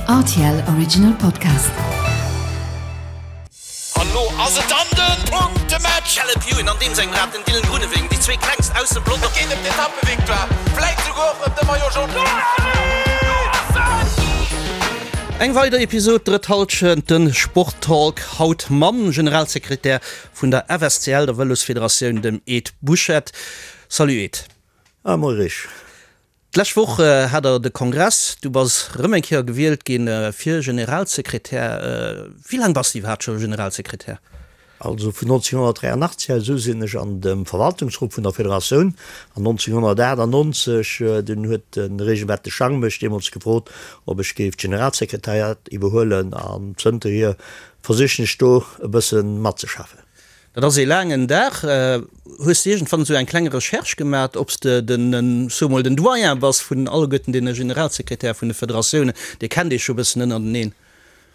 Rtl Original Podcast. An lo ass et dann den Punktematch! Caleb Ewan an deem sengem Rad, den Dylan Groenewegen, déi zwee klengst aus dem Pelotong. Et geet ëm d'Etappevictoire, vläit souguer och ëm de Maillot Jaune. Eng weider Episod Drëtt Halschent, de Sporttalk, haut mam Generalsekretär vun der FSCL, der Vëlosfederatioun, dem Ed Buchette. Salut Ed. Ah, moie Rich. D'lescht Woch hat der de Kongress, du bass rëm eng Kéier gewielt gi fir Generalsekretär. Wéi laang bass de iwwerhaapt scho Generalsekretär? Also vun 1983 aus u sinn ech an dem Verwaltungsrot vun der Federatioun an 1998 dunn huet de Regelbert de Schang mech deemools gefrot, ob ech géif d'Generalsekretariat iwwerhuelen an zënterhier versichen ech do e bësse matzeschaffen. Dat ass ee laangen Dag. Hues de iergendwann esou eng kleng Recherche gemat, ob s de den, soe mol, den Doyen bass vun alleguerten deene Generalsekretäre vun de Federatiounen? Dir kennt iech jo e bëssen ënnerteneen.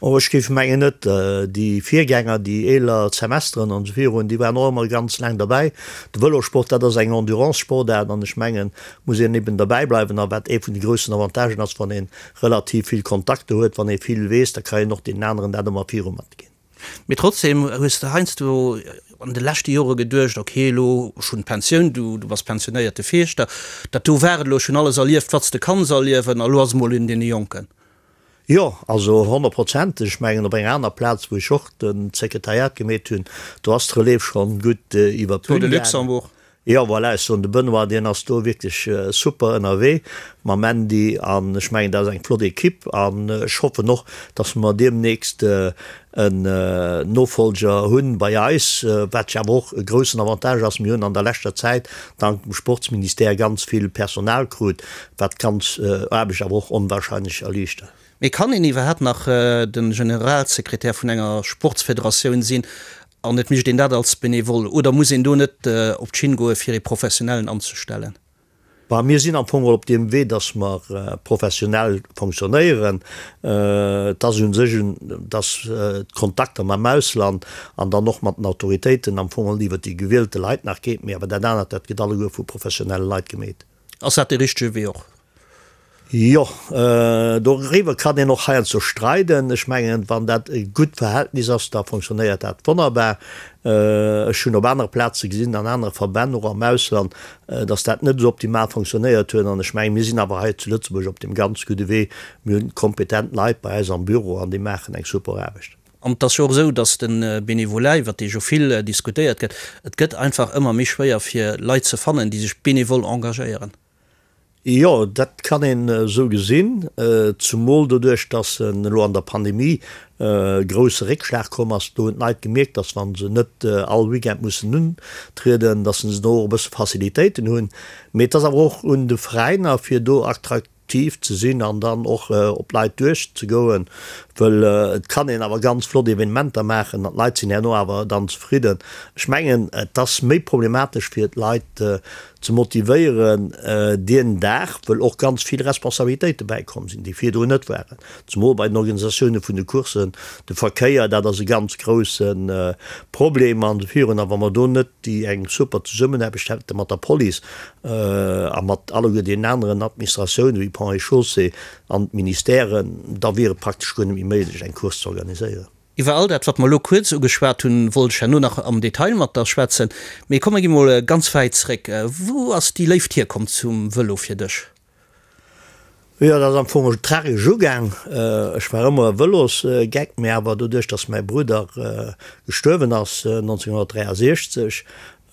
Oh, ech géif mengen net. Déi Virgänger, déi eeler Semesteren an esou virun, déi waren och ëmmer ganz laang derbäi. De Vëlosport, dat ass eng Endurance-Sportaart an ech mengen, muss een eben derbäi bleiwen. A wat ee vun de groussen Avantagen ass, wann ee relativ vill Kontakter huet, wann ee vill weess, da ka een och deenen aneren dat ëmmer viru matginn. Mee trotzdem hues de heiansdo an de leschte Jore geduecht, ok elo, ech hunn d'Pensioun, du du bass pensionéierte Fierschter, dat do war et elo, ech hunn alles erlieft wat s de kanns erliewen a lo ass et mol un deene Jonken. Jo, also honnertprozenteg. Ech mengen op enger aner Plaz wou ech och de Sekretariat gemeet hunn, do ass d'Relève schonn gutt iwwer d'Bün gaangen. Tour de Luxembourg. Jo, voilà, ech soen, de Benoît, deen ass do wierklech super ënnerwee mam Andy an ech mengen, dat ass eng flott Ekipp an ech hoffen och, dass mer deemnächst en Nofolger hunn bei eis, wat jo awer och e groussen Avantage ass. Mir hunn an der leschter Zäit dank dem Sportsministère ganz vill Personal krut, wat d'ganz Aarbecht awer och onwahrscheinlech erliichtert. Mee kann een iwwerhaapt nach de Generalsekretär vun enger Sportsfederatioun sinn an et mécht een dat als Benevole? Oder muss een do net op d'Schinn goe fir ee Professionellen anzestellen? Bah, mir sinn am Fong op deem Wee, datt mer professionell fonctionnéieren. Et ass u sech, datt d'Kontakter mam Ausland an dann och mat den Autoritéiten am Fong iwwer déi gewielte Leit nach geet, mee awer dat anert, dat gëtt alleguer vu professionelle Leit gemeet. Ass dat dee richtege Wee och? Jo, doriwwer kann een och heiansdo streiden. Ech mengen, wann dat e gutt Verhältnis ass, da fonctionnéiert dat wonnerbar. Ech hunn op anere Plaze gesinn, an anere Verbänn, och am Ausland, datt dat net esou optimal fonctionnéiert huet. An ech mengen, mir sinn awer hei zu Lëtzebuerg op deem ganz gudde Wee. Mir hunn kompetent Leit bei eis am Büro an déi maachen eng super Aarbecht. An et ass jo och esou, datt de Bénévolat, iwwert dee jo vill diskutéiert gëtt, et gëtt einfach ëmmer méi schwéier fir Leit ze fannen, déi sech bénévol engagéieren. Jo, dat kann een esou gesinn, zumol doduerch, datt elo an der Pandemie e grousse Réckschlag komm ass. Do hunn d'Leit gemierkt, datt wa se net all Weekend mussen untrieden, datt se do och e bësse Facilitéiten hunn. Mee et ass awer och un de Veräiner, fir do attraktiv ze sinn an dann och op d'Leit duerchzegoen, wëll et kann een awer ganz flott Evenementer maachen an d'Leit sinn herno awer dann zefridden. Ech mengen, et ass méi problematesch fir d'Leit ze motivéieren dien Dag, wëll och ganz vill Responsabilitéite bäikomm sinn, déi virdrun net waren, zemol bei den Organisatioune vun de Courssen, de Verkéier, dat ass e ganz grousse Problem an esou virun. A wa mer do net déi eng super Zesummenaarbecht hätte mat der Police a mat alleguer deenen aneren Administratiounen, wéi Ponts et Chaussées an d'Ministèren, da wier et praktesch guer net méi méiglech, eng Course ze organiséieren. Iwwer all dat, wat mer elo kuerz ugeschwat hunn, wollt ech herno nach am Detail mat der schwätzen. Mee komm, mer gi mol ganz wäit zréck. Wou ass déi Léift hierkomm zum Vëlo fir dech? Jo, dat ass am Fong tragesch ugaang. Ech war ëmmer e Vëlosgeck, mee awer doduerch, datt mäi Brudder gestuerwen ass 1963,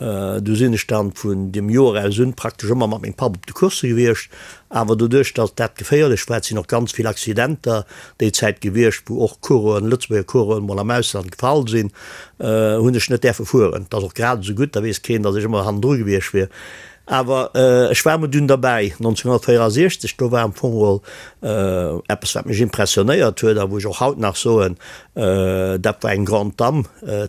Du sinn ech dann vun deem Joer aus un praktesch ëmmer mat mengem Papp op de Coursse gewiescht. Awer doduerch, datt dat geféierlech war, et sinn och ganz vill Accidenter déi Zäit gewiescht, wou och Coureuren, Lëtzebuerger Coureuren mol am Ausland gefall sinn, hunn ech net däerfe fueren. Et ass och grad esou gutt, da weess keen, datt ech ëmmer hannendru gewiescht wier. Awer ech war emol dunn derbäi, 1964, do war am Fong geholl eppes, wat mech impressionéiert huet a wou ech och haut nach soen, dat war eng Grande Dame,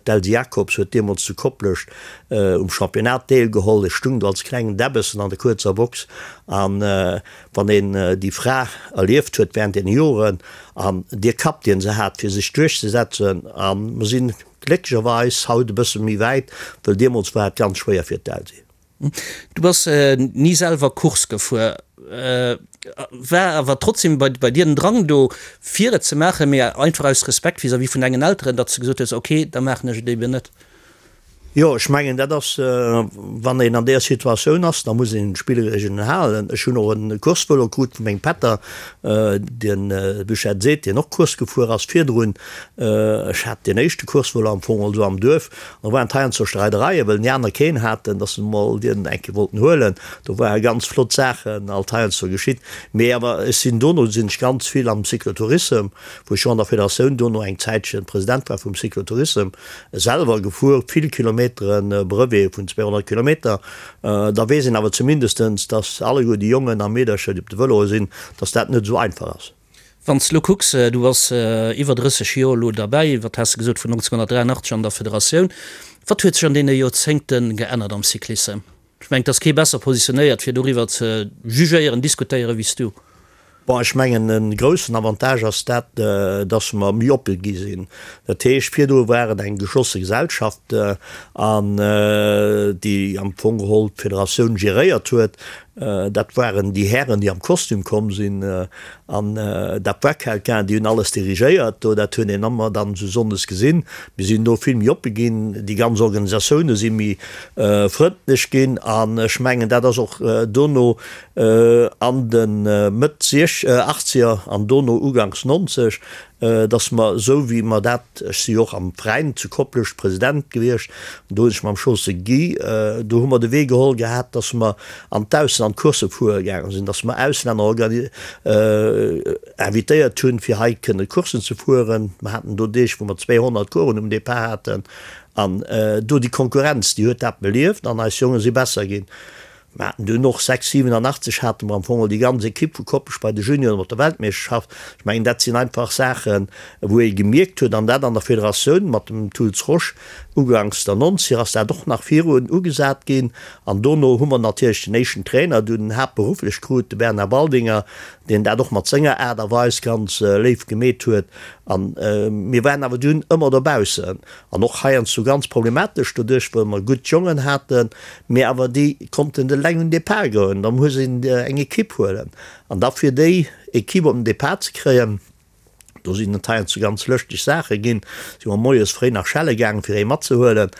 d'Elsy Jacobs huet deemools zu Koplescht um Championnat deelgeholl. Ech stung do als klengen Däbbessen an der kuerzer Box an wann een déi Fra erlieft huet während deene Joren an dee Kapp, deen se hat fir sech duerchzesetzen, a mer sinn glécklecherweis haut e bësse méi wäit, wëll deemools war et ganz schwéier fir d'Elsy. Du bass ni selwer Course gefuer. War awer trotzdem bei bei dir den Drang do fir et ze maachen, mee einfach aus Respekt vis-à-vis vun dengen Elteren, datt s de gesot hues, ok, da maachen ech et eben net? Jo, ech mengen dat ass, wann een an där Situatioun ass, da muss een d'Spillregeln halen. Ech hunn och e Coursevëlo krut vu mengem Pätter, deen Buchette seet, deen och Course gefuer ass virdrun. Ech hat deen éischte Coursevëlo am Fong also am Duerf. Da waren et heiansdo Streidereien, well déi aner keen haten, dass se emol dien eng Kéier wollten huelen. Do ware ganz flott Saachen alt heiansdo geschitt. Mee awer ech sinn dono sinn ech ganz vill am Cyclotourissem, wou ech jo an der Federatioun dono eng Zäitchen President war vum Cyclotourissem, selwer gefuer, vill Kilometeren, Brevete vun 200 Kilometer. Da weess een awer zumindestens, dass alleguer déi Jongen a Meedercher, déi op de Vëloe sinn, dass dat net esou einfach ass. Wann s de elo kucks, du bass iwwer 30 Joer elo derbäi, wat has de gesot, vun 1983 an der Federatioun, wat huet sech an deene Joerzéngte geännert am Cyclissem? Ech mengen, et ass kee besser positionéiert, fir doriwwer ze jugéieren, diskutéieren, wéi s du. Bon, ech mengen, e groussen Avantage ass dat, dass mer méi oppe gi sinn. Dat heescht, virdru war et eng geschlosse Gesellschaft, an déi am Fong geholl d'Federatioun geréiert huet. Dat waren déi Hären, déi am Kostüm komm sinn. An dat war quelqu'un, déi hunn alles dirigéiert do. Dat hunn een ëmmer dann esou sonndes gesinn. Mir sinn do vill méi oppe ginn. Déi ganz Organisatioune si méi frëndlech ginn. An ech mengen, dat ass och dono an de Mëtt Achtzeger an dono uganks 90, datt mer esou wéi mer dat, ech si jo och am Veräin zu Koplescht President gewiescht, an do hunn ech mam Chausse Guy, do hu mer de Wee geholl gehat, datt mer an d'Ausland Coursse fuere gaange sinn, datt mer Auslänner invitéiert hunn, fir hei kënne Courssen ze fueren. Mer haten do Deeg, wou mer 200 Coursen um Depart haten. An do déi Konkurrenz, déi huet dat belieft an eis Jonge si besser ginn. Mer haten dunn och 6, 87 hate mer am Fong déi ganz Ekipp vu Koppech bei de Junioren op der Weltmeeschterschaft. Ech mengen, dat sinn einfach Saachen, wou ee gemierkt huet, an dat an der Federatioun mat dem Tools Rosch uganks der Nonzeger ass dat och nach virun ugesat ginn. An dono hu mer natierlech den éischten Trainer dunn haaptberufflech krut, de Bernard Waldinger, deen dat och mat senger Aart a Weis ganz léif gemeet huet. A mir waren awer dunn ëmmer dobaussen. An och heiansdo ganz problematesch doduerch, well mer gutt Jongen haten, mee awer déi konnten eleng un Depart goen. Da muss een eng Ekipp huelen. An da fir déi Ekipp op den Depart ze kréien, do sinn et heiansdo ganz lëschteg Saache ginn, si mer moies fréi nach schelle gaangen, fir ee matzehuelen.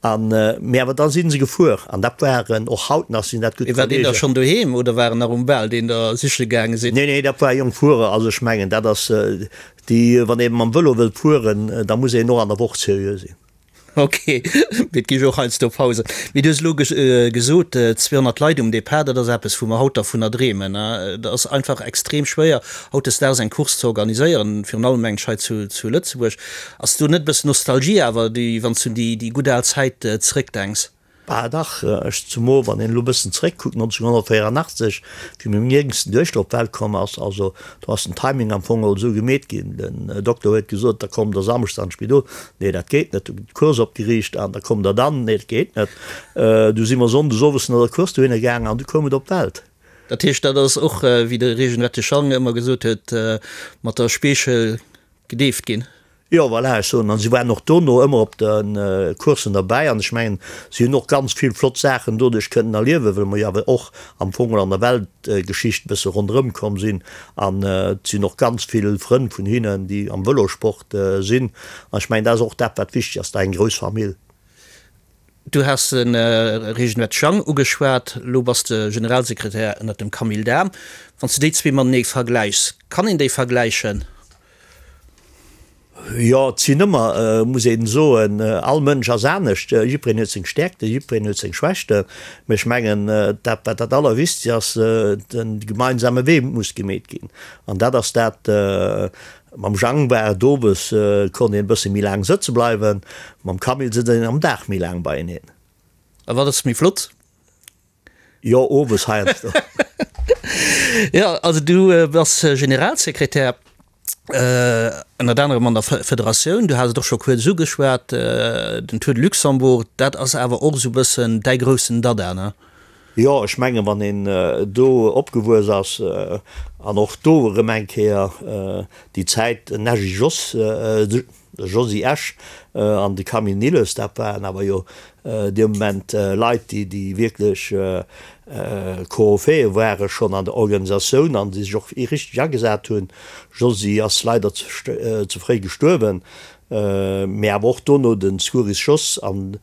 An, mee awer da si se gefuer. An dat waren, och haut nach sinn dat gutt War deen da Kollegen. schonn doheem oder war en nach um Bal, deen der siche gaange sinn? Nee, nee, dat war e jonk Fuerer. Also ech mengen, dat ass, Déi, wann ee mam Vëlo wëllt fueren, da muss een och an der Woch seriö sinn. Ok, mee et gi jo och heiansdo Pausen. Mee du hues elo gesot, 200 Leit um Depart, dat ass eppes, wou mer haut dervunner dreemen. Et ass einfach extrem schwéier, hautdesdaags eng Course ze organiséieren, virun allem mengen ech hei zu Lëtzebuerg. Ass do net e bëssen Nostalgie awer, déi, wann s du un déi gutt al Zäit zeréckdenks? Bah dach, ech zumo wann een elo bëssen zeréck kuckt, 1984 wéi meng jéngsten Duechter op d'Welt komm ass, also do ass den Timing am Fong och esou gemeet ginn, den Dokter huet gesot, da kommt der Samschdes an d'Spidol, nee dat geet net, du gëtt d'Course opgeriicht an da kommt der dann, nee dat geet net, du si mer Sonndes owes no der Course dohinner gaangen an du koum et op d'Welt. Dat heescht dat ass och, wéi de Regen Wettischang ëmmer gesot huet, mat der Speechel gedeeft ginn. Jo, voilà, ech soen, an si waren och dono ëmmer op de Coursen derbäi an ech mengen, si hunn och ganz vill flott Saachen doduerch kënnen erliewen, well mer jo awer och am Fong an der Weltgeschicht e bësse ronderëm komm sinn an et sinn och ganz vill Frënn vun hinnen, déi am Vëlosport sinn an ech mengen, dat ass och dat, wat wichteg ass, da eng grouss Famill. Du has de Reginald Schang ugeschwat, elo bass de Generalsekretär ënnert dem Camille Dahm. Wann s de déi zwee matenee vergläichs, kann een déi vergläichen? Jo, et sinn ëmmer, muss een soen, all Mënsch ass anescht, jiddwereen huet seng Stäerkten, jiddwereen huet seng Schwächten. Mee ech mengen, dat wat dat Allerwichtegst ass, de gemeinsame Wee muss gemeet ginn. An dat ass dat, mam Jang war et owes, konnt een e bësse méi laang sëtze bleiwen, mam Camille sëtzt een am Dag méi laang beieneen. A wat ass méi flott? Jo, owes heiansdo. Jo, also du bass Generalsekretär ënnert anerem an der Federatioun. Du has et och scho kuerz ugeschwat, den Tour de Luxembourg, dat ass awer och esou e bëssen däi groussen Dada, ne? Jo, ech mengen, wann een do opgewuess ass an och do erëm eng Kéier déi Zäit, den Nagy Jos. De Josy Esch an de Camille Nilles, dat waren awer jo dee Moment Leit, déi, déi wierklech Koryphäe ware schonn an der Organisatioun an déi sech och richteg agesat hunn. Josy ass leider ze fréi gestuerwen, mee awer och dono de Scuris Jos an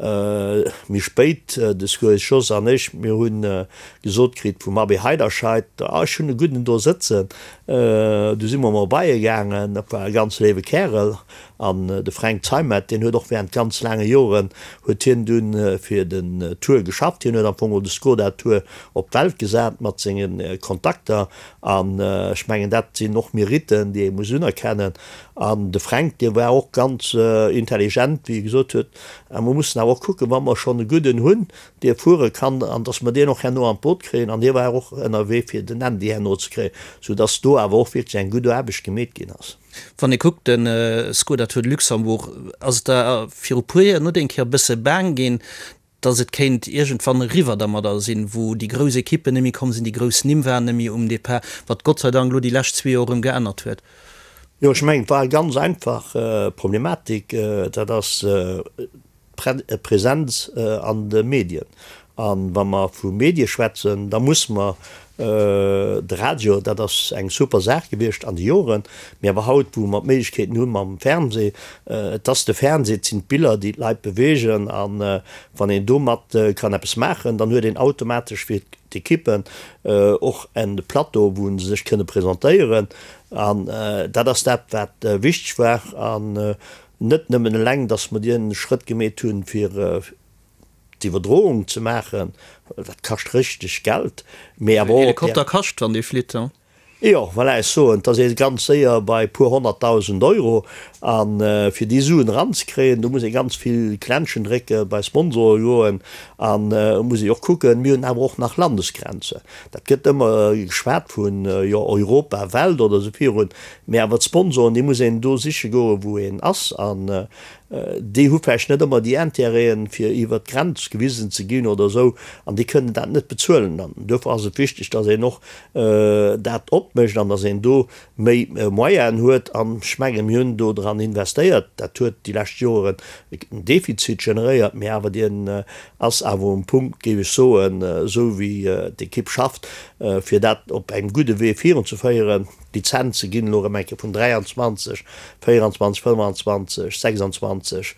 méi spéit de Scuris Jos an ech, mir hu gesot kritt vum Abbé Heiderscheid, ah ech hunn e gudden do sëtzen. Du si mer mol bei e gaangen, dat war e ganz léiwe Kärel. An de Fränk Zeimet, deen huet och während ganz laange Joren huet hien dunn fir den Tour geschafft. Hien huet am Fong och de Skoda Tour op d'Welt gesat mat senge Kontakter. An ech mengen, dat sinn och Meritten, déi ee muss unerkennen. An de Fränk, dee war och ganz intelligent, wéi e gesot huet, A mer mussen awer och kucken, wa mer schonn e gudden hunn, dee fuere kann, an datt mer deen och herno an d'Boot kréien. An hie war och ënnerwee, fir den Andy herno ze kréien, soudatt do awer och wierklech eng gutt Aarbecht gemeet ginn ass. Wann ee kuckt, de Skoda Tour de Luxembourg, ass et der viru puer Joer net eng Kéier e bësse baang ginn, datt et kéint iergendwann eriwwer dermadder sinn, wou déi grouss Ekippen net méi komm sinn, déi grouss Nimm waren net méi um Depart, wat Gott sei Dank elo déi lescht zwee Joer erëm geännert huet. Jo, ech mengen, et war eng ganz einfach Problematik, dat ass d'Präsenz an de Medien. A wa mer vu Medie schwätzen, da muss mer de Radio, dat ass eng super Saach gewiescht an de Joren, mee awer haut, wou mer d'Méiglechkeeten hu mam Fernseh, et ass de Fernseh, et sinn d'Biller, déi d'Leit beweegen. A wann een domat kann eppes maachen, dann huet een automatesch fir d'Ekippen och en Plateau, wou se sech kënne presentéieren. An dat ass dat, wat wichteg war. An net nëmmen eleng, datt mer dee Schrëtt gemeet hunn, fir d'Iwwerdroung ze maachen, dat kascht richteg Geld, mee awer och. Helikopter kascht, wann dee flitt, he? Jo, voilà, ech soen, et ass ee ganz séier bei e puer 100.000 Euro. A fir déi Suen eranzekréien, do muss ee ganz vill Klenschen drécken, bei Sponsore goen a muss ee och kucken, mir hunn awer och nach Landesgrenzen. Dat gëtt ëmmer geschwat vun, jo, Europa, Welt oder esou virun, mee awer d'Sponsoren, déi muss een do siche goen, wou een ass. An Déi hu vläicht net ëmmer déi Intérêten, fir iwwert d'Grenz gewisen ze ginn oder esou, an déi kënnen dat net bezuelen. An duerfir ass et wichteg, dass een och dat opmécht an dass een do méi Moyenen huet. An ech mengen, mir hunn do dran investéiert. Dat huet déi lescht Joren en Defizit generéiert, mee awer deen ass awer um Punkt, géif ech soen, esou wéi d'Ekipp schafft, fir dat op engem gudde Wee virunzeféieren. D'Lizenze ginn elo erëm eng Kéier vun 23, 24, 25, 26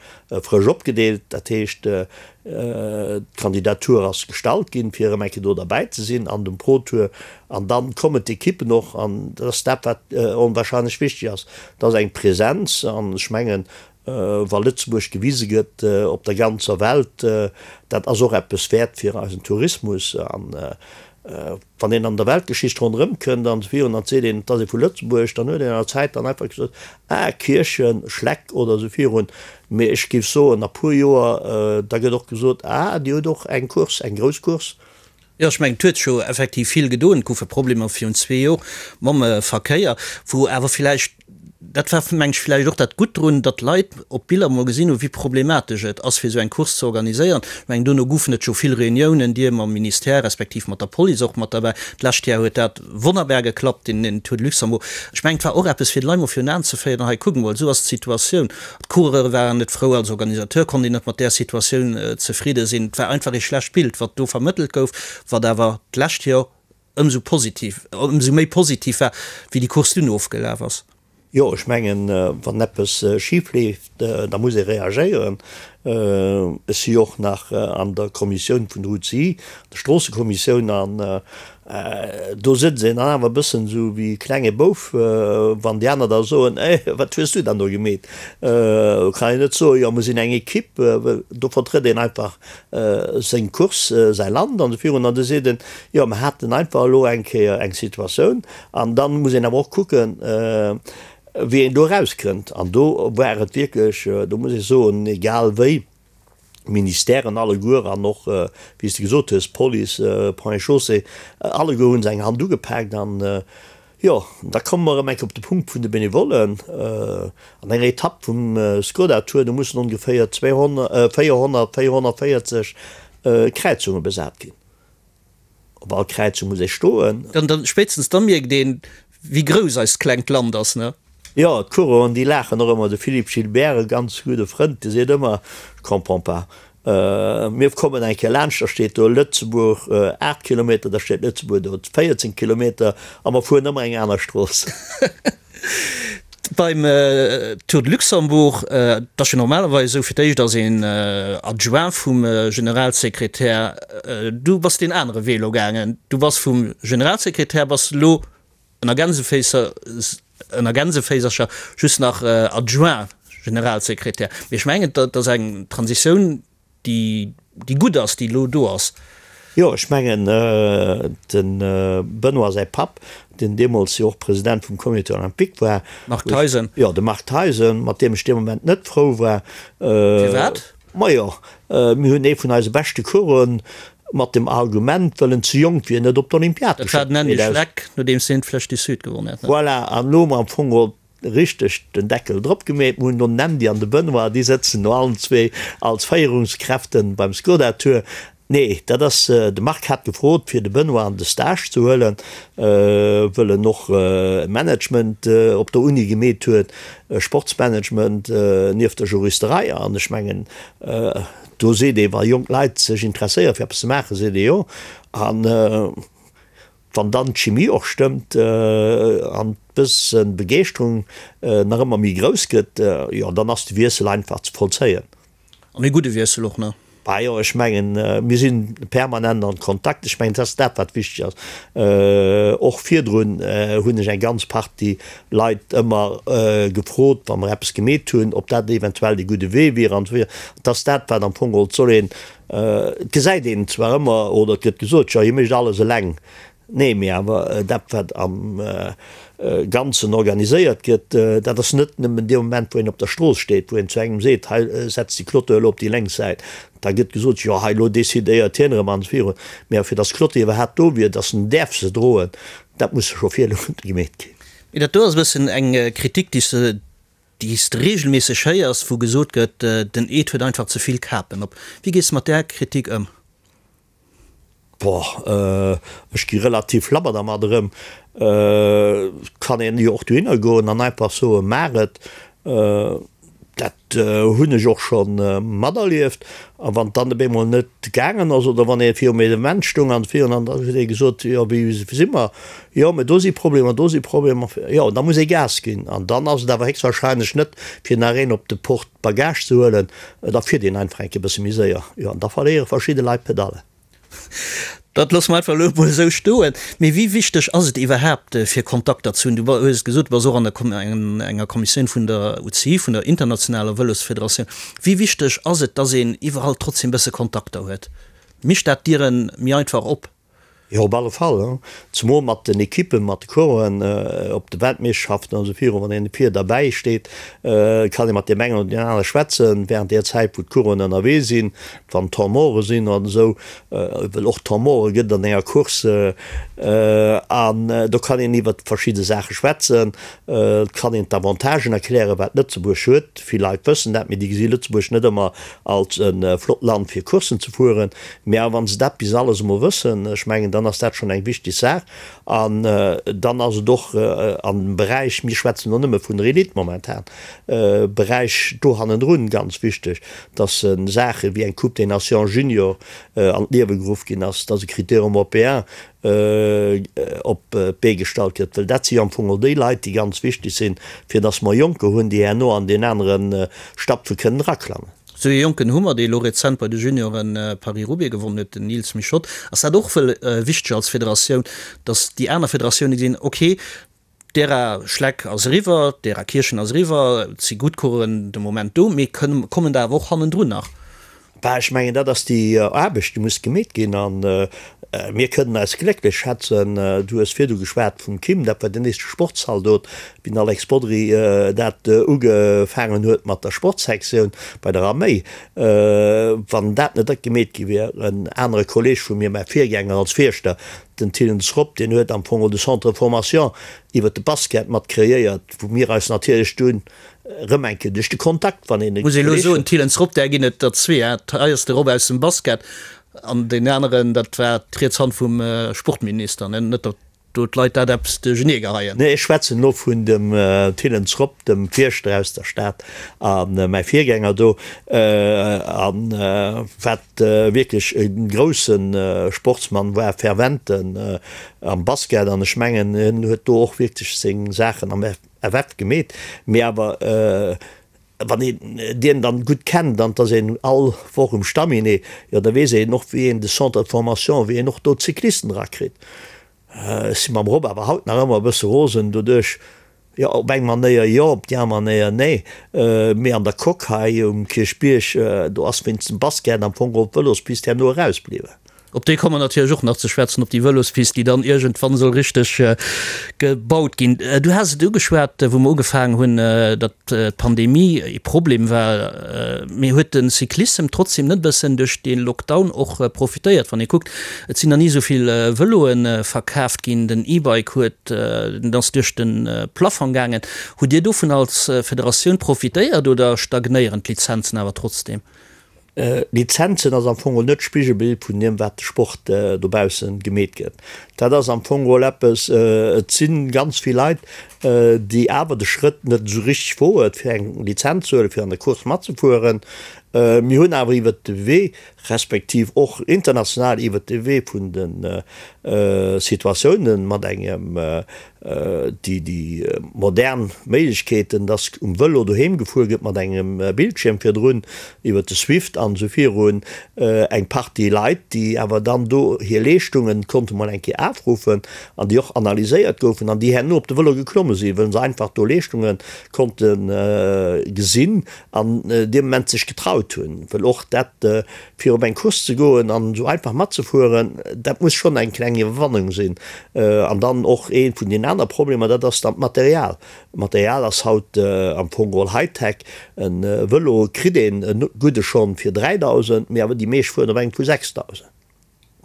frësch opgedeelt. Dat heescht, d'Kandidatur ass gestallt ginn, fir erëm eng Kéier do derbäi ze sinn an dem Pro-Tour. An da kommen d'Ekippen och. An dat ass dat, wat onwahrscheinlech wichteg ass, dat ass eng Presenz. An ech mengen, wa Lëtzebuerg gewise gëtt op der ganzer Welt, dat ass och eppes wäert fir eisen Tourismus. An Wann een an der Weltgeschicht ronderëm kënnt an virun an seet een, et ass ee vu Lëtzebuerg, dann huet een an der Zäit dann einfach gesot, ah, Kierchen, Schleck oder esou virun. Mee ech géif soen, a puer Joer, da gëtt och gesot, ah, Dir hutt och eng Course, eng grouss Course. Jo, ech mengen, et huet sech jo effektiv vill gedoen. Et goufe Problemer virun zwee Jor mam Verkéier, wou awer villäicht Dat war, meng ech, vläicht och dat Gutt drun, datt d'Leit op Biller mol gesinn hunn, wéi problematesch et ass, fir esou eng Course ze organiséieren. Ech mengen, dono goufen et jo vill Reuniounen, Dir mam Ministère respektiv mat der Police och mat derbäi. D'lescht Jar huet dat wonnerbar geklappt, den Tour de Luxembourg. Ech mengen, et war och eppes, fir d'Leit mol virun Aen ze féieren, Hei, kuckt mol, esou ass d'Situatioun. D'Coureure waren net frou, als Organisateur konnt een net mat där Situatioun zefridde sinn. Et war einfach ee schlecht Bild, wat do vermëttelt gouf, wat awer d'lescht Jor ëmsou positiv, ëmsou méi positiv war, wéi déi Course dunn ofgelaf ass. Jo, ech mengen, wann eppes schif leeft, da muss ee reagéieren. Ech si och nach an der Kommissioun vun der UCI, der Stroossekommissioun, an do sëtzt een dann awer e bëssen esou wéi e klenge Bouf, wann déi aner da soen, Eh, wat hues du dann do gemeet? Do kann een net soen, Jo, mer sinn eng Ekipp, well do vertrëtt een einfach seng Course, säi Land an esou virun, an da seet en, jo mer haten einfach elo eng Kéier eng Situatioun an da muss een awer och kucken, wéi een do erauskënnt. An do war et wierklech, do muss ech soen, egal wéi, d'Ministèren alleguer an och, wéi s de gesot hues, Police, Ponts et Chaussées, alleguer hu se eng Hand ugepaakt an Jo, da komme mer erëm eng Kéier op de Punkt vun de Benevollen. An enger Etapp vum Skoda Tour, do mussen ongeféier 200, 400, 440 Kräizunge besat ginn. Op all Kräizung muss ee stoen. Dann, dann, spéitstens da mierkt een, wéi grouss eist klengt Land ass, ne? Jo, d'Coureuren, déi laachen och ëmmer. De Philippe Gilbert, e ganz gudde Frënd, dee seet ëmmer, Je comprends pas. Mir kommen eng Kéier laanscht, da steet do Lëtzebuerg 8 Kilometer, da steet Lëtzebuerg do 14 Kilometer a mer fueren ëmmer eng aner Strooss. Beim Tour de Luxembourg, et ass jo normalerweis esou, fir d'éischt ass een Adjoint vum Generalsekretär. Du bass deen anere Wee elo gaangen, du bass vum Generalsekretär bass elo ënner Gänseféisser, ënner Gänseféisercher just nach Adjoint Generalsekretär. Mee ech mengen, dat ass eng Transitioun, déi, déi gutt ass, déi elo do ass. Jo, ech mengen, de Benoît säi Papp, deen deemools jo och President vum Comité olympique war, Marc Theisen. Jo, de Marc Theisen, mat deem ech dee Moment net frou war. Firwat? Majo, mir hunn ee vun eise beschte Coureuren mat dem Argument, well en ze jonk wier, net op d'Olympiad geschéckt. Dat war den Andy Schleck, nodeems hien d'Flèche du Sud gewonnen hat, ne? Voilà, an elo hu mer am Fong geholl richteg den Deckel drop gemeet. Mir hunn do den Andy an de Benoît, déi sëtzen no allen zwee als Féierungskräften beim Skoda Tour. Nee, dat ass, de Marc hat gefrot, fir de Benoît an de Stage ze huelen, wëll en och Management op der Uni gemeet huet, Sportsmanagement nieft der Juristerei. An ech mengen, do seet ee, wa jonk Leit sech interesséiere fir eppes ze maachen, seet ee jo. An wann dann d'Chimie och stëmmt an d'bësse Begeeschterung nach ëmmer méi grouss gëtt, jo, dann ass de Wiessel einfach ze vollzéien. An ee gudde Wiessel och nach. Bah jo, ech mengen, mir si permanent an Kontakt. Ech mengen, dat ass dat, wat wichteg ass. Och virdrun hunn ech eng ganz Partie Leit ëmmer gefrot, wa mer eppes gemeet hunn, ob dat eventuell dee gudde Wee wier an esou weider. Dat ass dat, wat am Fong geholl, et soll een, et gesäit een zwar ëmmer oder et gëtt gesot, jo, hie mécht alles eleng. Nee, mee awer dat, wat am Ganzen organiséiert gëtt, dat ass net nëmmen dee Moment, wou een op der Strooss steet, wou een zu engem seet, hei setz déi Clôture elo op déi lénks Säit. Da gëtt gesot, jo hei elo decidéiert hien erëm an virun. Mee awer fir datt d'Clôture iwwerhaapt do wier, datt en däerf se droen, dat muss scho virdu gemeet ginn. Mee dat do ass e bëssen eng Kritik, déi s de, déi s de reegelméisseg héiers, wou gesot gëtt, den Ed huet einfach ze vill Kapen op. Wéi gees de mat där Kritik ëm? Boah, ech gi relativ labber dermat erëm. Et kann een jo och dohinner goen an einfach soen, maach et. Dat hunn ech och scho materlieft. A wann et dann op eemol net gaangen ass oder wann ee virum Evenement stoung an virun an da huet ee gesot, jo wéi si mer, jo mä do si Problemer, do si Problemer, jo da muss ee Gas ginn. An dann ass et awer héchstwahrscheinlech net fir nach een op de Porte Bagage ze huelen, da fiert een einfach eng Kéier e bësse méi séier, jo, an da verléiere verschidde Leit d'Pedallen. Dat loosse mer einfach elo emol esou stoen. Mee wéi wichteg ass et iwwerhaapt, fir Kontakter ze hunn? Du hues et gesot, du bass och an der enger Kommissioun vun der UCI, vun der internationaler Vëlosfederatioun. Wéi wichteg ass et, dass een iwwerall trotzdem e bësse Kontakter huet? Mécht dat d'Diere méi einfach op? Jo, op alle Fall. Zemol mat den Ekippen, mat de Coureuren op de Weltmeeschterschaften an esou virun. Wann een vir derbäi steet, kann ee mat deem engen oder deem anere schwätzen, während där Zäit, wou d'Coureuren ënnerwee sinn, wann Temps morte sinn an esou, well och Temps morte gëtt et an enger Course. An do kann een iwwert verschidde Saache schwätzen. Et kann een d'Avantagen erklären, wat Lëtzebuerg huet. Vill Leit wëssen dat, mee déi gesi Lëtzebuerg net ëmmer als e flott Land fir Courssen ze fueren. Mä awer wa se dat bis alles emol wëssen, ech mengen, dann ass dat schonn eng wichteg Saach. An dann ass et och an dem Beräich, mir schwätzen elo nëmme vun der Elite momentan, Beräich do hannendrun ganz wichteg, dass Saache wéi eng Coupe des Nations Junior an d'Liewe geruff ginn ass, dass e Critérium européen op d'Bee gestallt gëtt, well dat si jo am Fong och déi Leit, déi ganz wichteg sinn, fir dass mer Jonker hunn, déi herno an deen anere Stapfe kënnen eraklammen. Esou ee Jonken hu mer, dee elo rezent bei de Junioren Paris-Roubaix gewonnen huet, den Nils Michotte. Ass dat och wëll wichteg als Federatioun, dass déi aner Federatioune gesinn, ok, D'Ära Schleck ass eriwwer, d'Ära Kierchen ass eriwwer, et si gutt Coureuren de Moment do, mee kommen der awer och hannendrun nach? Bah, ech mengen, dat ass déi Aarbecht, déi muss gemeet ginn. A mir kënnen eis glécklech schätzen, du hues virdu geschwat vum Kim, dat war den éischte Sportszaldot, wéi den Alex Bodry dat ugefaangen huet mat der Sportsektioun bei der Arméi. Wann dat net gemeet gi wier, en anere Kolleeg vu mir, mäi Virgänger als Fierschter, Den Thillens Rob, deen huet am Fong de Centre de formation iwwert de Basket mat kreéiert, wou mir eis natierlech dunn erëm eng Kéier duerch de Kontakt, wann een e Muss ee elo soen, Thillens Rob, där ginn et der zwee, hein. Hei ass de Rob aus dem Basket an deen aneren, dat war d'riets Hand vum Sportminister, ne, net der. do d'Leit dat eppes duerchenee geheien. Nee, ech schwätzen elo vun dem Thillens Rob, dem Fierschter aus der Stad a mäi Virgänger do, a wat wierklech e grousse Sportsmann war, ferventen am Basket, an ech mengen, hien huet do och wierklech seng Saachen am FF gemeet, mee awer wann een dien dann gutt kennt an 't ass een all Woch um Stamminet, jo da weess een och wéi een de Centre de formation, wéi een och do d'Cyclisten erakritt. Ech si mam Rob awer haut nach ëmmer e bësse rosen doduerch, jo op eng Manéier jo, op déi aner Manéier nee, mee an der Coque hei um Kierchbierg, do ass wéinst dem Basket am Fong geholl d'Vëlospist herno erausbliwwen. Op déi komme mer natierlech och nach ze schwätzen, op déi Vëlospist, déi dann iergendwann soll richteg gebaut ginn. Du has et ugeschwat, wou mer ugefaangen hunn, datt d'Pandemie ee Problem war. Mee huet de Cyclissem trotzdem net e bëssen duerch dee Lockdown och profitéiert? Wann ee kuckt, et sinn nach ni esou vill Vëloe verkaaft ginn, den E-Bike huet, den ass duerch de Plafong gaangen. Hutt Dir dovun als Federatioun profitéiert oder stagnéieren d'Lizenzen awer trotzdem? Lizenzen ass am Fong net d'Spigelbild vun deem wat de Sport dobaussen gemeet gëtt. Dat ass am Fong geholl eppes, et si ganz vill Leit, déi awer de Schrëtt net esou richteg woen, fir eng Lizenz ze huelen, fir an der Course matzefueren. Mir hunn awer iwwert de Wee, respektiv och international iwwert de Wee vun de Situatiounen mat engem déi déi modern Méiglechkeeten, dass um Vëlo doheem gefuer gëtt mat engem Bildschierm virdrun, iwwer de Swift an esou virun, eng Partie Leit, déi awer dann do hir Leeschtungen konnte mol eng Kéier afruffen an déi och analyséiert goufen an déi herno op de Vëlo geklomme sinn, wëll se einfach do Leeschtunge konnte gesinn an dee Moment sech getraut hunn, wëll och dat Fir op eng Course ze goen an esou einfach matzefueren, dat muss schonn eng kleng Iwwerwannung sinn. An dann och ee vun den aner Problemer, dat ass dann d'Material. D'Material ass haut am Fong geholl Hightech. E Vëlo kritt een e gudde schonn fir 3.000, mee awer déi meescht fueren op engem vu 6.000.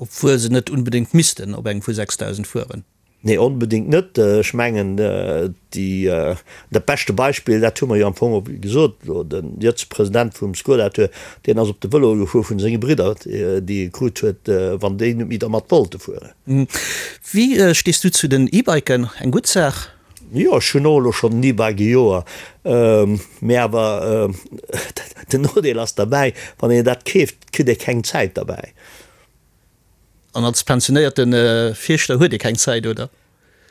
Obwuel se net unbedéngt missten op engem vu 6.000 fueren. Nee, onbedéngt net. Ech mengen, déi, dat beschte Beispill, dat hu mer jo am Fong och gesot elo, de jëtzege President vum Skoda-Tour, deen ass op de Vëlo gefuer vun senge Bridder, déi e krut huet, wann déi net méi dermat wollte fueren. Wéi stees du zu den E-Biken? Eng gutt Saach? Jo, ech hunn och elo schonn en E-Bike e Joer, mee awer den Nodeel ass derbäi, wann een dat keeft, kritt ee keng Zäit derbäi. An als pensionéierte Fierschter huet ee keng Zäit, oder?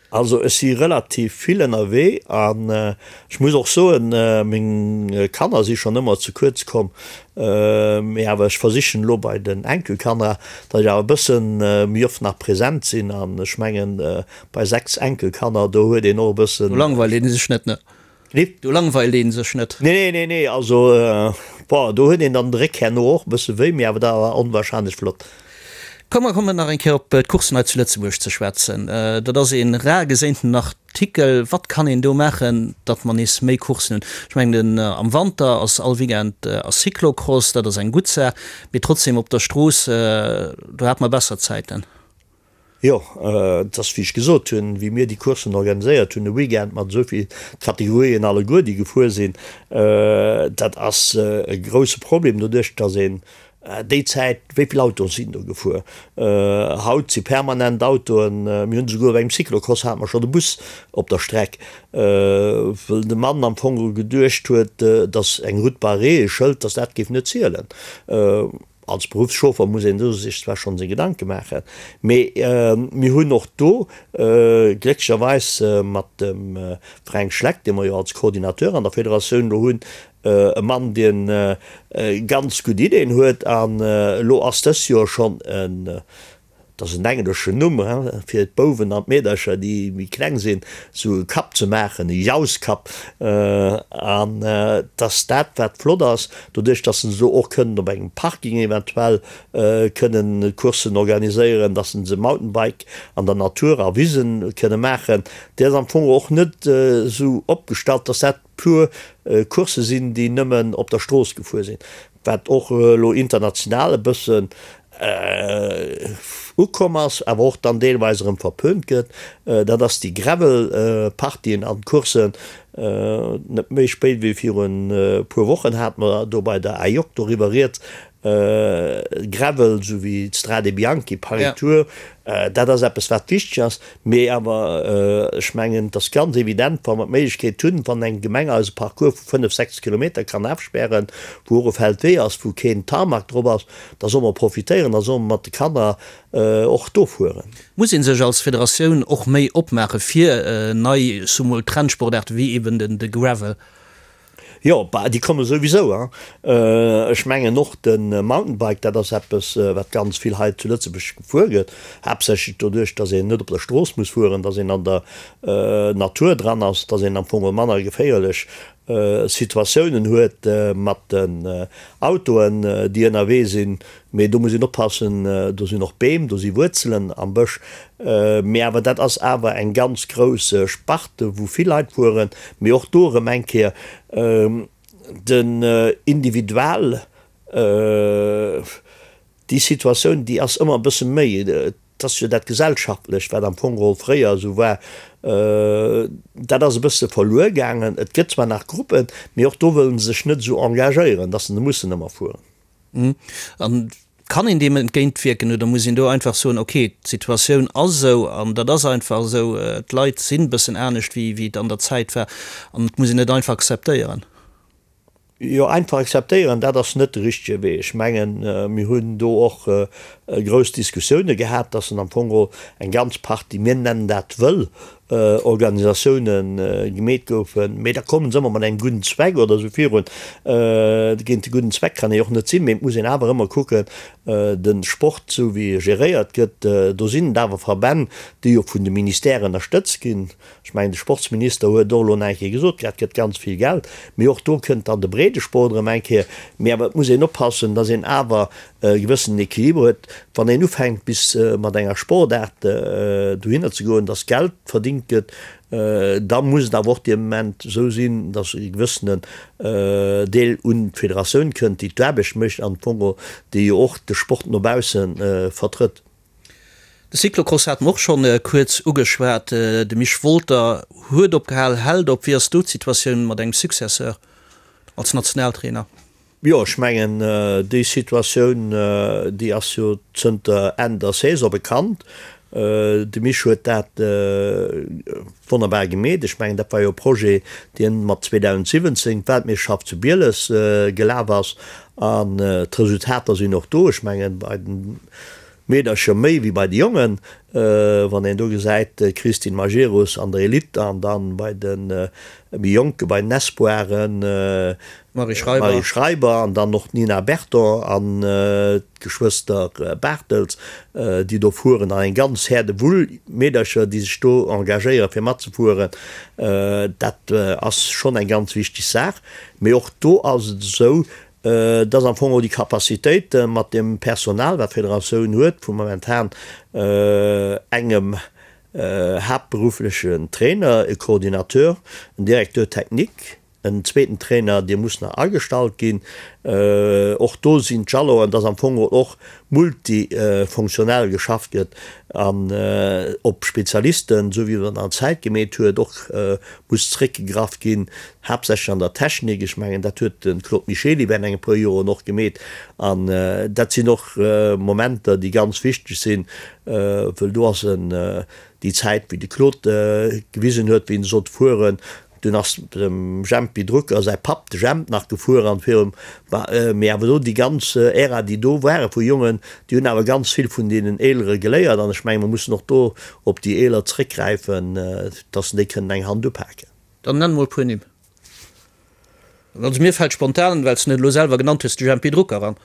Also ech si relativ vill ënnerwee an ech muss och soen, meng Kanner si schonn ëmmer ze kuerz komm, mee awer ech versichen elo bei den Enkelkanner, datt ech awer e bësse méi oft nach present sinn an ech mengen bei 6 Enkelkanner, do huet een och e bëssen. Do langweilt ee sech net, ne? Nee. Do langweilt een sech net. Nee, nee, nee, also, bon, do huet een dann de Réck herno och e bësse wéi, mee awer dat war onwahrscheinlech flott. Komm, mer kommen nach eng Kéier op d'Courssen hei zu Lëtzebuerg ze schwätzen. Dat ass ee rar geséinten Artikel. Wat kann een do maachen, datt mer nees méi Courssen hunn? Ech mengen, den am Wanter ass all Weekend ass Cyclocross, dat ass eng gutt Saach, mee trotzdem op der Strooss, do hate mer besser Zäiten. Jo, et ass wéi ech gesot hunn, wéi mir déi Courssen organiséiert hunn, e Weekend mat esou vill Kategorien alleguer, déi gefuer sinn, dat ass e grouse Problem doduerch, datt een déi Zäit, wéi vill Autoen sinn do gefuer? Haut si permanent Autoen, mir hunn esouguer op engem Cyclocross hate mer schonn e Bus op der Streck, wëll de Mann am Fong geduecht huet, datt eng Route barrée, e Schëld, datt dat géif net zielen. Als Beruffschauffer muss een do sech zwar schonn seng Gedanke maachen, mee mir hunn och do glécklecherweis mat dem Fränk Schleck, dee mer jo als Coordinateur an der Federatioun elo hunn, e Mann, deen ganz gutt Ideeën huet. An elo ass dës Joer schonn e Et ass en engleschen Numm fir d'Bouwen an d'Meedercher, déi méi kleng sinn, esou e Cup ze maachen, e Jauss-Cup. An et ass dat, wat flott ass, doduerch, dass se elo och kënnen op engem Parking eventuell kënnen Courssen organiséieren, dass se Mountainbike an der Natur a Wisen kënne maachen. Déi ass am Fong och net esou opgestallt, dass dat pur Coursse sinn, déi nëmmen op der Strooss gefuer sinn, wat och elo international e bëssen ukomm ass, awer och dann deelweis erëm verpönt gëtt, dat ass déi Gravel-Partien an Courssen. Net méi spéit wéi virun e puer Wochen hate mer do bei der AIOC doriwwer rieds. Gravel, esou wéi d'Strade Bianchi, Paris Tour, dat ass eppes wat wichteg ass. Mee awer ech mengen, et ass ganz evident, wa mer d'Méiglechkeet hunn, wann eng Gemeng eis e Parcours vu 5, 6 Kilometer kann afspären, wou och e Feldwee ass, wou keen Tarmac drop ass, da solle mer profitéieren, da solle mer mat de Kanner och do fueren. Muss ee sech als Federatioun och méi opmaache fir nei, soe mol, Trendsportaarte wéi eben de Gravel? Jo, bah, déi komme souwisou, hein. Ech mengen och de Mountainbike, dat ass eppes, wat ganz vill hei zu Lëtzebuerg gefuer gëtt, haaptsächlech doduerch, dass een net op der Strooss muss fueren, dass een an der Natur dran ass, dass een am Fong manner geféierlech Situatiounen huet mat den Autoen, déi ënnerwee sinn. Mee do muss een oppassen, do sinn och Beem, do si Wuerzelen am Bësch. Mee awer dat ass awer eng ganz grouss Sparte wou vill Leit fueren. Mee och do erëm eng Kéier, den Individual, déi Situatioun, déi ass ëmmer e bësse méi, et ass jo dat Gesellschaftlecht, wat am Fong geholl fréier esou war, dat ass e bësse verluer gaangen. Et gëtt zwar nach Gruppen, mee och do wëlle se sech net esou engagéieren, datt se mussen ëmmer fueren. An kann een deem entgéintwierken oder muss een do einfach soen, okay, d'Situatioun ass esou an dat ass einfach esou, d'Leit sinn e bëssen anescht wéi wéi et an der Zäit war an et muss een et einfach akzeptéieren? Jo, einfach akzeptéieren, dat ass net de richtege Wee. Ech mengen, mir hunn do och grouss Diskussioune gehat, dass en am Fong geholl eng ganz Partie, mir nennen dat wëll Organisatioune gemeet goufen, mee da kommen se ëmmer mat engem gudden Zweck oder esou virun. Géint de gudden Zweck kann ee och net sinn, mee et muss een awer ëmmer kucken, de Sport esou wéi e geréiert gëtt, do sinn et awer Verbänn, déi jo vun de Ministèren ënnerstëtzt ginn. Ech mengen, de Sportsminister huet och elo nach eng Kéier gesot, dat gëtt ganz vill Geld, mee och do kënnt dann de Breedesport erëm eng Kéier. Mee awer et muss een oppassen, datt een awer e gewëssenen Equiliber huet, wann een ufänkt bis mat enger Sportaart dohinner ze goen, dass Geld verdingt gëtt, da muss et awer och dee Moment esou sinn, dass e gewëssenen Deel un d'Federatioun kënnt, déi d'Aarbecht mécht an am Fong déi jo och de Sport no bausse vertrëtt. De Cyclocross hate mer och schonn kuerz ugeschwat. De Misch Wolter huet opgehal, hält op. Wéi ass do d'Situatioun mat engem Successeur als Nationaltrainer? Jo, ech mengen, déi Situatioun, déi ass jo zënter Enn der Saison bekannt. De Misch huet dat wonnerbar gemeet. Ech mengen, dat war jo e Projet, deen mat 2017 d'Weltmeeschterschaft zu Bieles gelaf ass. An d'Resultater sinn och do. Ech mengen, bei den Meedercher méi wéi bei de Jongen, wann een do gesäit, d'Christine Majerus an der Elite an dann bei de méi Jonke bei den Espoiren d'Marie Schreiber an dann och d'Nina Berton an d'Geschwëster Bartels, déi do fueren an eng ganz Häerdewull Meedercher, déi sech do engagéiere fir matzefueren. Dat ass schonn eng ganz wichteg Saach. Mee och do ass et esou, dass am Fong och déi Capacitéite mat deem Personal, wat d'Federatioun huet, vu momentan engem haaptberufflechen Trainer, e Coordinateur, en Directeur technique, en zweeten Trainer, dee muss nach agestallt ginn, och do sinn d'Jalonen, dass am Fong och multifunktionell geschafft gëtt an op Spezialisten, esou wéi et an der Zäit gemeet huet, och muss zréckgegraff ginn, haaptsächlech an der Technik. Ech mengen, dat huet de Claude Michely während enge puer Joren och gemeet. An dat sinn och Momenter, déi ganz wichteg sinn, wëll do ass en déi Zäit, wéi de Claude gewisen huet, wéi en sollt fueren, dunn ass dem Jempy Drucker säi Papp, de Jemp, nach gefuer an virum, mee awer do déi ganz Ära, déi do ware vu Jongen, déi hunn awer ganz vill vun deenen Eelere geléiert. An ech menge mer mussen och do op déi Eeler zréckgräifen, dass se déi kënnen eng Hand upaken. Dann nenn mol e puer Nimm. Also mir fält spontan, well s de en elo selwer genannt hues, de Jempy Drucker an.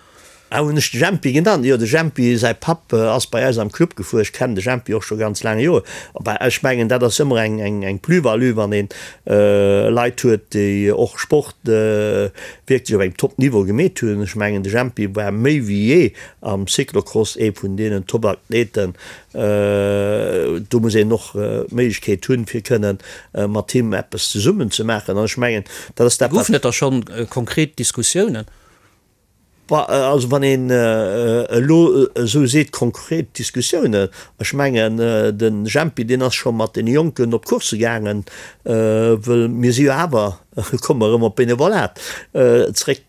Ah, hunn ech de Jempy genannt? Jo, de Jempy säi Papp ass bei eis am Club gefuer. Ech kennen de Jempy och scho ganz laang Joer. Bah, ech mengen, dat ass ëmmer eng, eng, eng Plus-value, wann een Leit huet, déi och Sport wierklech op engem Top-Niveau gemeet hunn. Ech mengen, de Jempy war méi wéi jee am Cyclocross ee vun deenen Top-Athleten, Do muss een och d'Méiglechkeet hunn, fir kënnen mat him eppes zesummen ze maachen. An ech mengen, dat ass dat, wat. Goufen et da schonn konkret Diskussiounen? Also wann een elo esou seet, konkret Diskussiounen, ech mengen, de Jempy, deen ass scho mat deene Jonken op Coursse gaangen, wëll mir si jo awer. Komme mer erëm op d'Benevolat zréck.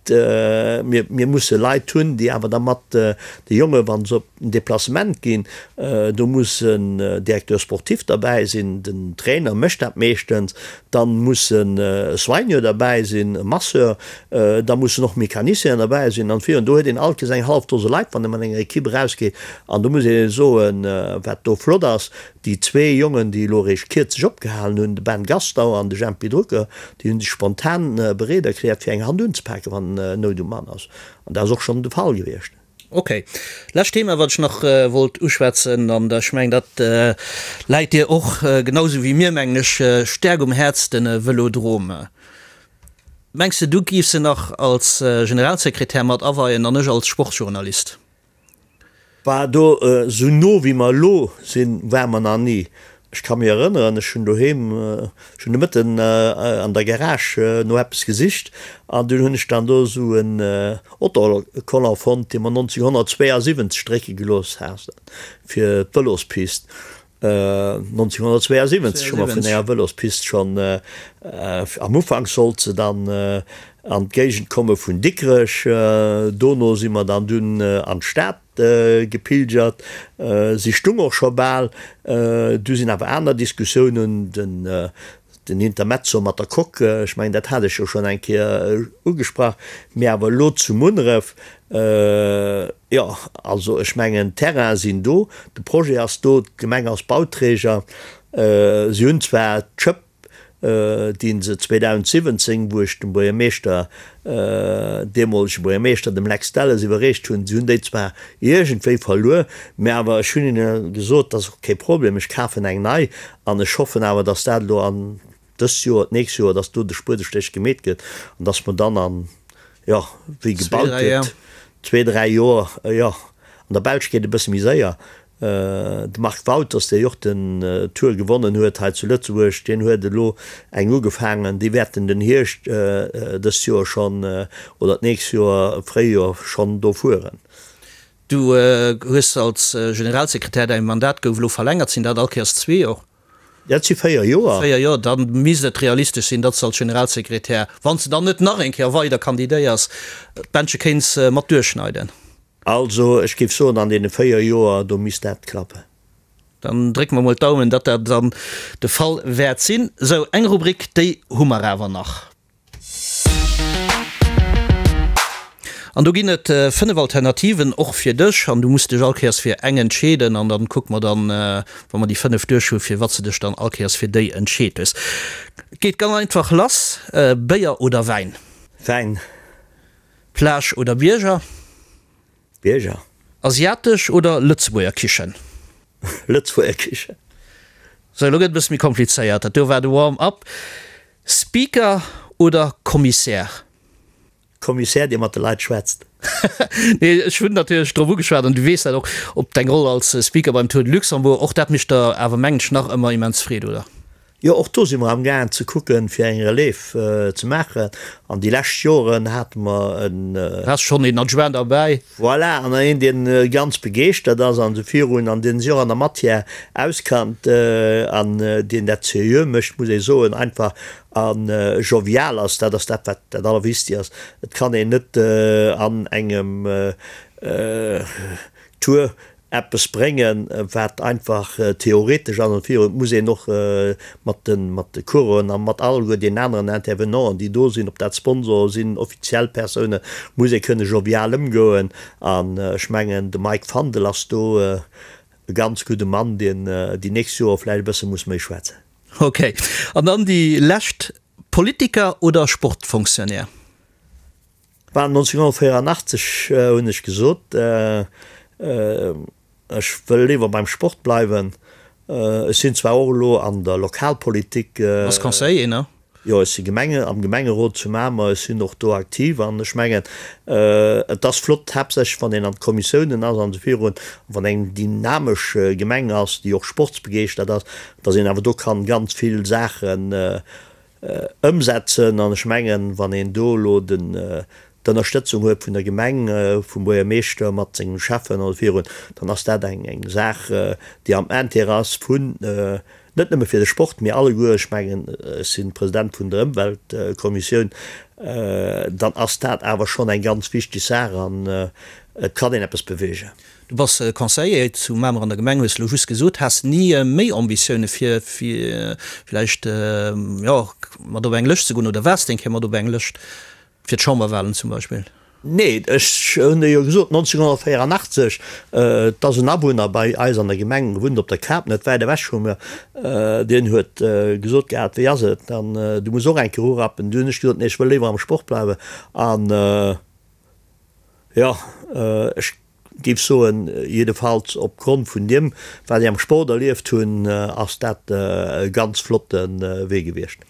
Mir, mir musse Leit hunn, déi awer da mat de Jonge wa se op en Deplacement ginn, do muss en Directeur sportif derbäi sinn, den Trainer mécht dat meeschtens, dann muss e Soigneur derbäi sinn, e Masseur, da mussen och Mecanicienen derbäi sinn an virun. Do huet een alt kees eng hallef Dose Leit, wann ee mat enger Equipe erausgeet. An do muss ee soen, wat do flott ass, Déi zwee Jongen, déi elo eréischt kierzlech opgehalen hunn, de Ben Gastauer an de Jempy Drucker, déi hunn sech spontan bereet erkläert, fir eng Hand unzepaken, wann Nout um Mann ass. An dat ass och schonn de Fall gewiescht. Ok. Lescht Thema, wat ech nach wollt uschwätzen, an ech mengen, dat läit dir och genau esou wéi mir, mengen ech, staark um Häerz, de Vëlodrome. Mengs de, du giffs en nach als Generalsekretär mat aweien an ech als Sportjournalist? War do esou no wéi mer elo sinn, ware mer nach ni. Ech ka mech erënneren, ech hunn doheem, ech hunn de Mëtten an der Garage no eppes gesicht an dunn hunn ech dann do esou en Autocollant fonnt, dee mer 1972 drécke gelooss haten fir d'Vëlospist. 1972 hu mer vun enger Vëlospist schonn, am Ufank sollt se dann an d'Géigend komme vun Dikrech, dono si mer dann dunn an d'Stad gepilgert. Si stung och scho bal, du sinn awer aner Diskussiounen, den Den Intermezzo mat der Coque, ech mengen, dat hat ech jo schonn eng Kéier ugesprach, mee awer elo zu Munneref, jo, also ech mengen, d'Terrainen sinn do, de Projet ass do, d'Gemeng ass Bauträger. Si hunn zwar d'Schëpp, déi se 2017, wou ech dem Buergermeeschter, deemolege Buergermeeschter, dem Lex Delles, iwwerreecht hunn, si hunn déi zwar iergendwéi verluer, mee awer ech hunn hinne gesot, dat ass och kee Problem, ech kafen eng nei An ech hoffen awer, dass dat elo an dëst Joer, d'nächst Joer, dass do de Spuedestéch gemeet gëtt an dass mer dann an, jo, wéi gebaut gëtt, zwee, dräi Joer, jo, an der Belsch geet e bësse méi séier. De Marc Wauters, dee jo och den Tour gewonnen huet hei zu Lëtzebuerg, deen huet elo eng ugefaangen, déi wäerten den Hierscht dëst Joer schonn oder d'nächst Joer, Fréijoer schonn do fueren. Du hues als Generalsekretär, däi Mandat gouf elo verlängert, sinn dat all Kéiers zwee Joer? Dat si véier Joer. Véier Joer, da misst et realistesch sinn, datt s de als Generalsekretär, wann s de dann net nach eng Kéier weider kandidéiers, d'Bändche kéints mat duerchschneiden. Also ech géif soen, an deene véier Joer, do misst dat klappen. Dann drécke mer mol d'Daumen, datt dat dann de Fall wäert sinn. Sou, eng Rubrik, déi hu mer awer nach. An do ginn et 5 Alternativen, och fir dech. An du muss dech all Kéiers fir eng entscheeden. An dann kucke mer dann, wa mer déi 5 duerch hu, fir wat s de dech dann all Kéiers fir déi entscheet hues. Et geet ganz einfach lass, Béier oder Wäin? Wäin. Plage oder Bierger? Bierger. Asiatesch oder Lëtzebuerger Kichen? Lëtzebuerger Kichen. Sou, elo gëtt et e bësse méi komplizéiert. Dat do war de Warm-up. Speaker oder Kommissär? Kommissär, dee mat de Leit schwätzt. Nee, ech hunn natierlech drop ugeschwat, an du weess dat och, op deng Roll als Speaker beim Tour de Luxembourg. Och dat mécht der awer, mengen ech, nach ëmmer immens Freed, oder? Jo, och do si mer amgaangen ze kucken, fir eng Relève ze maachen. An déi lescht Joren hate mer en. Has schonn een Adjoint derbäi. Voilà, an een, deen ganz begeeschtert ass an esou virun an deen sech och an der Matière auskannt an deen dat seriö mécht, muss ee soen, einfach a jovial ass. Dat ass dat, wat dat Allerwichtigst ass. Et kann een net an engem Tour eppes bréngen, wat einfach theoretesch ass an virun. Et muss een och mat de mat de Coureuren a mat alleguer deenen aneren Intervenanten, déi do sinn, ob dat Sponsoren sinn, offiziell Persounen, muss ee kënne jovial ëmgoen. An ech mengen, de Mike Fandel ass do e ganz gudde Mann, deen déi nächst Joer vläicht e bësse muss méi schwätzen. Ok. An dann déi lescht, Politiker oder Sportfonctionnaire? War 1984 hunn ech gesot, ech wëll léiwer beim Sport bleiwen. Ech sinn zwar och elo an der Lokalpolitik. Bass Conseiller, ne? Jo, ech si Gemenge, am Gemengerot zu Mamer. Ech sinn och do aktiv an ech mengen, et ass flott, haaptsächlech wann een an d'Kommissiounen ass an esou virun, wann eng dynamesch Gemeng ass, déi och sportsbegeeschtert ass, datt een awer do kann ganz vill Saachen Ëmsetzen. An ech mengen, wann een do elo d'Ënnerstëtzung huet vun der Gemeng, vum Buergermeeschter mat sengem Schäffen oder virun, dann ass dat eng Saach, déi am Intérêt ass vun. Net nëmme fir de Sport, mee alleguer, ech mengen, ech si President vun der Ëmweltkommissioun, dann ass dat awer schonn eng ganz wichteg Saach an et kann een eppes beweegen. Du bass Conseiller zu Mamer an der Gemeng, hues elo just gesot. Has ni méi Ambitioune fir villäicht, jo, mat op eng Lëscht ze goen oder waars de eng Kéier mat op eng Lëscht fir d'Chamberwahlen zum Beispill? Nee, ech hunn der jo gesot, 1984, et ass en Awunner bei eis an der Gemeng, wunnt op der Kap, net wäit ewech vu mir, deen huet gesot gehat, wéi ass et dann, du muss och eng Kéier urappen. Du hunn ech gesot, nee, ech wëll léiwer am Sport bleiwen. An jo, ech géif soen, jiddefalls opgrond vun deem, wat ech am Sport erlieft hunn, ass dat e ganz flotte Wee gewiescht.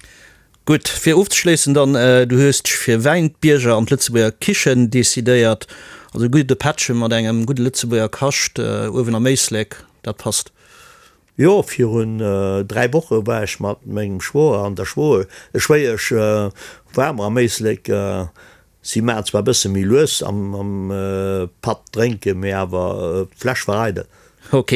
Gutt, fir ofzeschléissen dann, Du hues dech fir Wäin, d'Bierger an d'Lëtzebuerger Kichen decidéiert. Also e gudde Pättche mat engem gudde Lëtzebuerger Kascht uewen am Éislek, dat passt. Jo, virun 3 Woche war ech mat mengem Schwoer an der Schwéiesch war mer am Éislek. Si maachen zwar e bësse méi lues am Patt drénken, mee awer d'Fläsch war eidel. Ok,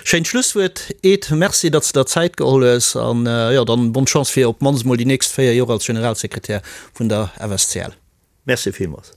schéint Schlusswuert Ed. Merci datt s de der Zäit geholl hues an jo dann bonne Chance fir op d'mannst mol déi nächst 4 Joer als Generalsekretär vun der FSCL. Merci villmools.